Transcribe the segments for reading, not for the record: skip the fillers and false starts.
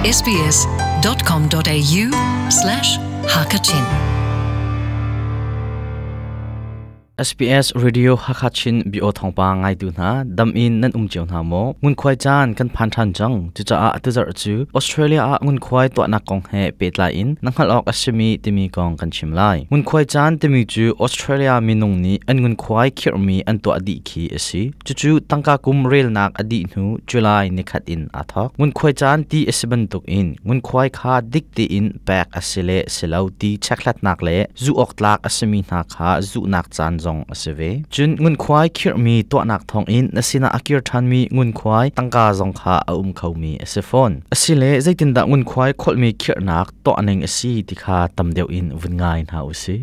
sbs.com.au/hakachin SBS Radio Hakachin bio thawngpang ngaitu hna dam in nan um cio hna maw ngunkhuai caan kan phan ṭhan cang cucaah tuzarh cu Australia ah ngunkhuai tuahnak kong he pehtlai in na hngalh awk a simi timi kong kan chim lai ngunkhuai caan timi cu Australia minung nih an ngunkhuai khirhmi an tuah dih khi a si Cucu tangka kum relnak a dih hnu July nikhat in aa thawk. Ngunkhuai caan ti a si bantuk in ngunkhuai kha dik tein pek a si le si lo ti chekhlatnak le zuh awk tlak a simi hna kha zuhnak caan zong a si ve. Cun ngunkhuai khirhmi tuahnak thawngin na sinah a kir ṭhanmi ngunkhuai tangka zong kha a um khomi a si fawn. Asile zeitindah ngunkhuai kholhmi khirhnak tuah ning a si ti kha tam deuh in vun ngai hna u sih.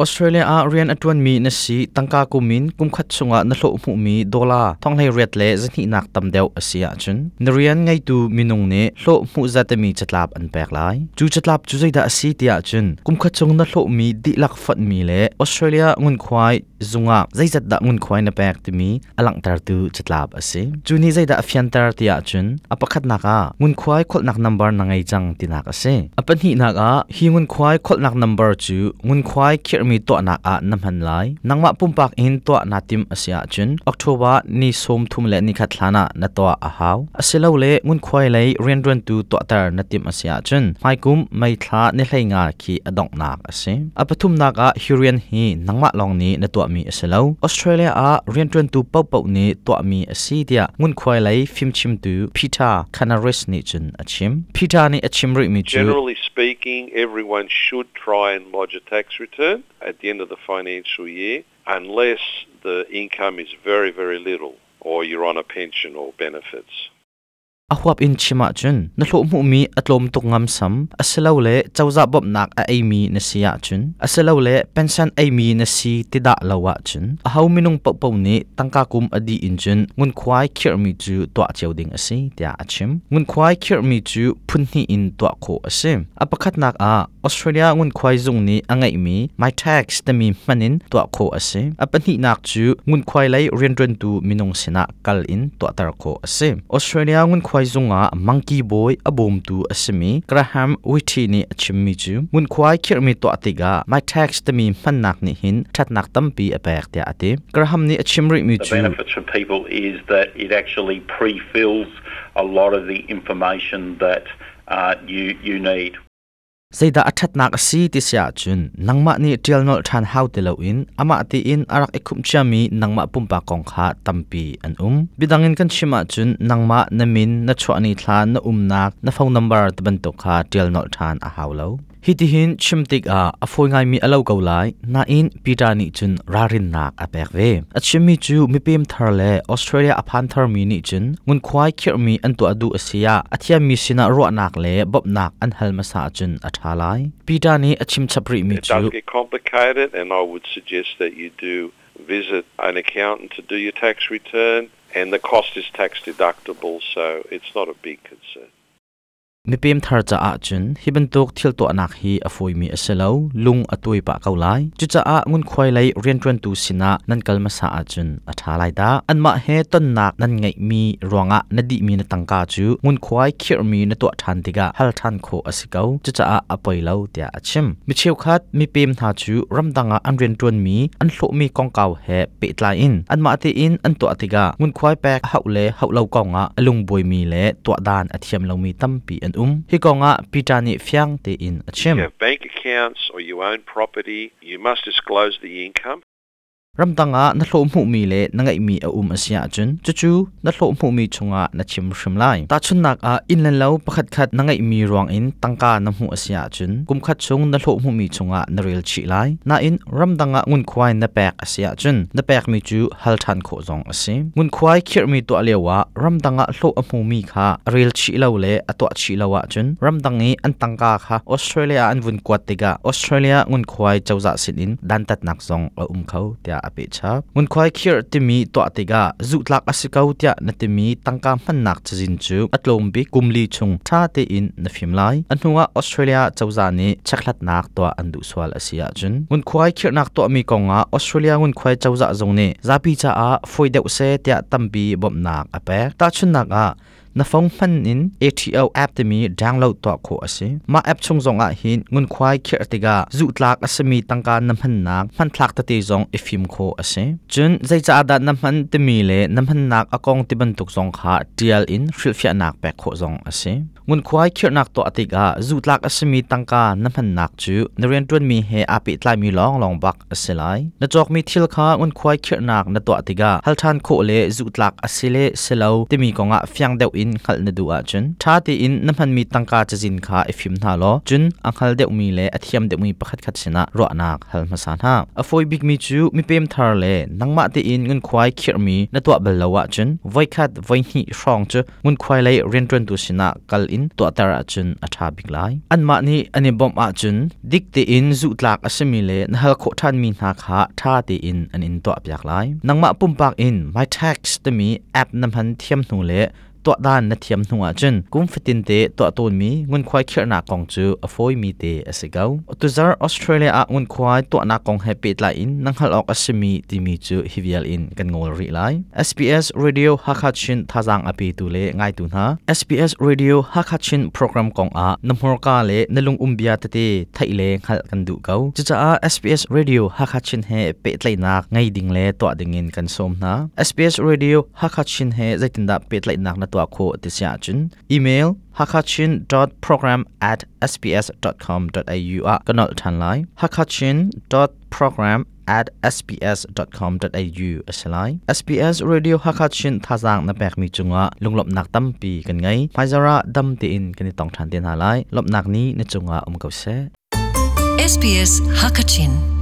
Australia ah rian a ṭuanmi na si tangka kum in kumkhat chungah na hlawh hmuhmi dollar thonghleiriat le zahnihnak tam deuh a si ahcun na rian ngeitu minung nih hlawh hmuh zatemi catlap an pek lai. Cu catlap cu zeidah a si tiah cun kumkhat chung na hlawhmi dihlak fonhmi le Australia ngunkhuai zungah zeizat dah ngunkhuai na pek timi a langhtertu catlap a si. Cu nih zeidah a fianter ti ahcun a pakhatnak ah ngunkhuai kholhnak number na ngei cang tinak a si. A pahnihnak ah hi ngunkhuai kholhnak number cu ngunkhuai khirhmi tuahnak ah na hman lai. Nangmah pumpak in tuah naa timh a si ahcun October ni 31 hlan ah na tuah a hau. Asilole ngunkhuai lei rianṭuantu tuahter na timh a si ahcun hmaikum May thla ni 15 khi a donghnak a si. A pathumnak ah hi rian hi nangmah lawng nih na tuahmi a si lo. Australia ah rianṭuantu paohpaoh nih tuahmi a si tiah ngunkhuai lei fimchimtu Peter Canaris nih cun a chim. Peter nih a chim rihmi cu Generally speaking, everyone should try and lodge a tax return at the end of the financial year unless the income is very, very little or you're on a pension or benefits. A huap in chim ahcun na hlawh hmuhmi a tlawm tuk ngamsam asilole cozah bawmhnak a eimi na si ahcun asilole pension eimi na si ti dah lo ahcun aho minung paohpaoh nih tangka kum a dih in cun ngunkhuai khirhmi cu tuah cio ding a si tiah a chim. Ngunkhuai khirhmi cu phun hnih in tuah khawh a si. A pakhatnak ah Australia ngunkhuai zung nih a ngeihmi MyTax timi hman in tuah khawh a si. A pahnihnak cu ngunkhuai lei rianṭuantu minung sinah kal in tuahter khawh a si. Australia ngunkhuai zung ah mangki bawi a bawmtu a simi Graham Whitty nih a chimmi cu ngunkhuai khirhmi tuah tikah MyTax timi hmannak nih hin ṭhatnak tampi a pek tiah a ti. Graham nih a chim rihmi The cu benefits for people is that it actually pre-fills a lot of the information that you, you need. Zeidah a ṭhatnak a si ti si ahcun nangmah nih ṭial nolh ṭhan hau ti loin amah tiin a rak i khumh ciami nangmah pumpak kong kha tampi an um. Biadang in kan chim ahcun nangmah na min, na chuah ni thla, na umnak, na phone number ti bantuk kha ṭial nolh ṭhan a hau lo. Hitihin chim tikah a fawi ngaimi a lo ko lai, nain Peter nih cun ralrinnak a pek ve. A chimmi cu mipem thar le Australia a phan tharmi nih cun ngunkhuai khirhmi an tuah duh a si ah a thiammi sinah ruahnak le bawmhnak an hal hmasa ahcun a ṭha lai. Peter nih a chim chap rihmi It does cu get complicated and I would suggest that you do visit an accountant to do your tax return and the cost is tax deductible so it's not a big concern. Mipem thar caah cun hi bantuk thil tuahnak hi a fawimi a si lo, lung a tuai pah ko lai. Cucaah ngunkhuai lei rianṭuantu sinah nan kal hmasa ahcun a ṭha lai dah. Anmah he tonnak nan ngeihmi ruangah na dihmi na tangka cu ngunkhuai khirhmi na tuah ṭhan tikah hal ṭhan khawh a si ko. Cucaah a poi lo tiah a chim. Mi cheukhat mipem hna cu ramdang ah an rianṭuanmi an hlawhmi kongkau he pehtlai in anmah tein an tuah tikah ngunkhuai pek a hauh le hauh lo kongah a lungbuaimi le tuah dan a thiam lomi tampi an um. Hi kongah Peter nih fiang tein a chim. You have bank accounts or you own property, you must disclose the income. Ramdang ah na hlawh hmuhmi le na ngeihmi a um a si ahcun cucu na hlawh hmuhmi chungah na chim hrim lai. Tahchunhnak ah inn le lo pakhatkhat na ngeihmi ruangin tangka na hmuh a si ahcun kumkhat chung na hlawh hmuhmi chungah na rel chih lai. Nain ramdang ah ngunkhuai na pek a si ahcun na pekmi cu hal ṭhan khawh zong a si. Ngunkhuai khirhmi tuah lio ah ramdang ah hlawh a hmumi kha a rel chih lo le a tuah chih lo ahcun ramdang i an tangka kha Australia ah an vun kuat tikah Australia ngunkhuai cozah sinin dantatnak zong a um kho tiah tiah a pehchap. Ngunkhuai khirh timi tuah tikah zuhtlak a si ko tiah na timi tangka hmannak cazin cu a tlawm bik kum li chung ṭha tein na fim lai. A hnuah Australia cozah nih chekhlatnak tuah an duh sual a si ahcun ngunkhuai khirhnak tuahmi kongah Australia ngunkhuai cozah zong nih zapi caah fawi deuh seh tiah tampi bawmhnak a pek. Tahchunhnak ah, na phone hman in ATO app timi download tuah khawh a si. Mah app chung zong ah hin ngunkhuai khirh tikah zuhtlak a simi tangka na hmannak hmanthlak tete zong i fim khawh a si. Cun zeicaah dah na hman timi le na hmannak a kong ti bantuk zong kha ṭial in hrilhfiahnak pek khawh zong a si. Ngunkhuai khirhnak tuah tikah zuhtlak a simi tangka na hmannak cu na rianṭuanmi he aa pehtlaimi lawnglawng bak a si lai. Na cawkmi thil kha ngunkhuai khirhnak na tuah tikah hal ṭhan khawh le zuhtlak a si le si lo timi kongah fiang deuh in hngalh na duh ahcun ṭha tein na hmanmi tangka cazin kha i fim hna law cun a hngal deuhmi le a thiam deuhmi pakhatkhat sinah ruahnak hal hmasa hna. A fawi bikmi cu mipem thar le nangmah tein ngunkhuai khirhmi na tuah bal lo ahcun voikhat voihnih hrawng cu ngunkhuai lei rianṭuantu sinah kal in tuahter ahcun a ṭha bik lai. Anmah nih an i bawmh ahcun dik tein zuhtlak a simi le na hal khawh ṭhanmi hna kha ṭha tein an in tuahpiak lai. Nangmah pumpak in MyTax timi app na hman thiam hnu le tuahdan na thiam hnu ahcun kum fatin te tuah tawnmi ngunkhuai khirhnak kong cu a fawimi te a si ko. Tuzarh Australia ah ngunkhuai tuahnak kong he pehtlai in na hngalh awk a simi timi cu hi vial in kan ngawl rih lai. SBS Radio Hakha Chin thazaang a petu le ngaitu hna. SBS Radio Hakha Chin program kong ah na hmurka le na lungum bia tete theih le hngalh kan duh ko. Cucaah SBS Radio Hakha Chin he pehtlaihnak ngei ding le tuah ding in kan sawm hna. SBS Radio Hakha Chin he zeitindah pehtlaihnak na tuah khawh ti si ahcun email hakachin.program at sbs.com.au ah ka nolh ṭhan lai. hakachin.program at sbs.com.au a si lai. SBS Radio Hakha Chin thazaang na pekmi cungah lunglawmhnak tampi kan ngei. Hmaizarh ah dam tein kan i tong ṭhan te hna lai. Lawmhnak ni na cungah um ko seh. SBS Hakachin.